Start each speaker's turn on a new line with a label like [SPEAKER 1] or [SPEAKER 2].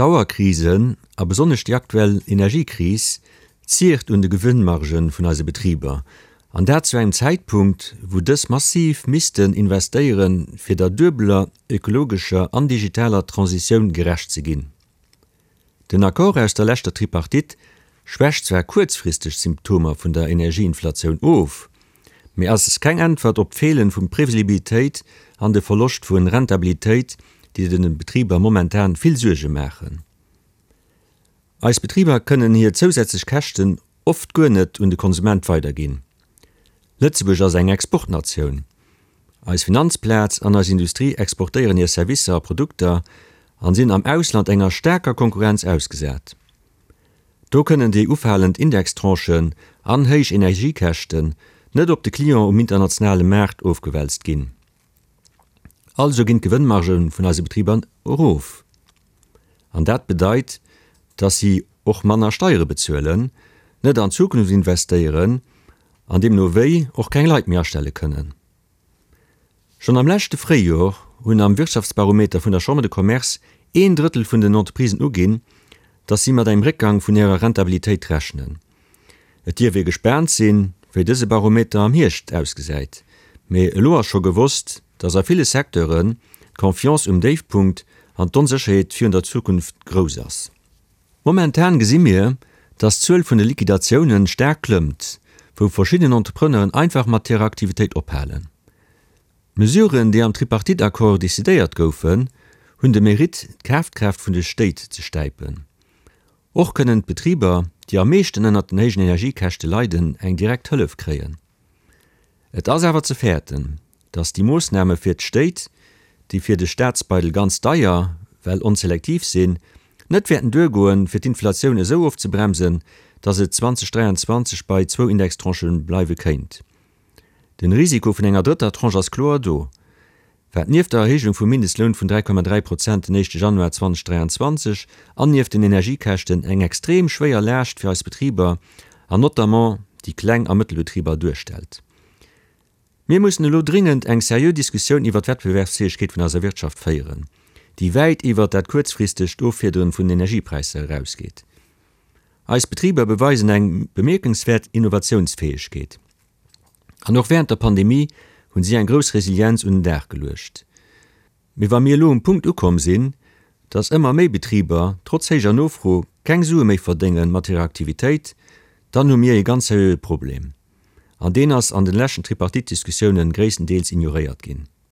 [SPEAKER 1] D'Dauerkrisen, a besonnesch déi aktuell Energiekris, ziert un de Gewënnmarge vun eise Betriber, an dat zu engem Zäitpunkt, wou dës massiv missten investéieren, fir der duebeler ökologescher an digitaler Transitioun gerecht ze ginn. Den Accord aus der leschter Tripartite schwächt zwar kuerzfristeg d'Symptomer vun der Energieinflatioun of, mee ass keng Äntwert op d'Feelen vu Previsibilitéit an de Verloscht vu Rentabilitéit, déi de Betriber momentan vill Suerge maachen. Eis Betriber kënnen hir zousätzlech Käschten oft guer net un de Konsument weiderginn. Lëtzebuerg ass eng Exportnatioun. Eis Finanzplaz an eis Industrie exportéieren hir Servicer a Produkter an sinn am Ausland enger staarker Konkurrenz ausgesat. Do kënnen déi ufalend Indextranchen an héich Energiekäschten net op de Client um internationale Maart ofgewälzt ginn. Also ginn d'Gewënnmargë vun eise Betriber erof. An dat bedeit, dass si och manner Steiere bezuelen, net an d'Zukunft investéieren an deemno wéi och keng Leit méi astelle kënnen. Schonn am leschte Fréijor hunn am Wirtschaftsbarometer vun der Chambre de Commerce een Drëttel vun den Entreprisen uginn, dass si mat engem Réckgang vun hirer Rentabilitéit rechnen. Et dierf ee gespaant sinn, wéi dëse Barometer am Hierscht ausgesäit, mee elo ass scho gewosst, dass a ville Secteuren d'Confiance um Déifpunkt an d'Onsécherheet virun der Zukunft grouss ass. Momentan gesi mir, dass d'Zuel vun de Liquidatiounen staark klëmmt, wou verschidden Entrepreneuren einfach mat hirer Aktivitéit ophalen. D'Mesuren, déi am Tripartite-Accord decidéiert goufen, hunn de Mérite, d'Kafkraaft vun de Stéit ze stäipen. Och kënnen d'Betriber, déi am meeschten ënnert den héijen Energiekäschte leiden, eng direkt Hëllef kréien. Et ass awer ze fäerten, datt déi Moossname fir d'Stéit, déi fir de Staatsbeidel ganz deier, well onselektiv sinn, net wäerten duergoen, fir d'Inflatioun esou ofzebremsen, datt et 2023 bei zwou Indextranchë bleiwe kéint. Den Risiko vun enger drëtter Tranche ass kloer do, wat nieft der Erhéijung vum Mindestloun vun 3,3 Prozent den éischte Januar 2023 an nieft den Energiekäschten eng extrem schwéier Laascht fir eis Betriber an notamment déi Kleng a Mëttelbetriber duerstellt. Mir mussen elo dringend eng seriö Diskussioun iwwert d'Wettbewerbsfäegkeet vun eiser Wirtschaft féieren, déi wäit iwwert dat kuerzfristegt Offiederen vun den Energiepräisser erausgeet. Eis Betriber beweisen eng bemierkenswäert Innovatiounsfäegkeet. An och wärend der Pandemie hunn si eng grouss Resilienz un den Dag geluecht. Mee wa mir elo um Punkt ukomm sinn, dass ëmmer méi Betriber trotz héijer Nofro keng Sue méi verdénge mat hirer Aktivitéit, dann hu mir ee ganz seriöe Problem. An deen ass an den leschten Tripartite-Diskussiounen gréisstendeels ignoréiert ginn.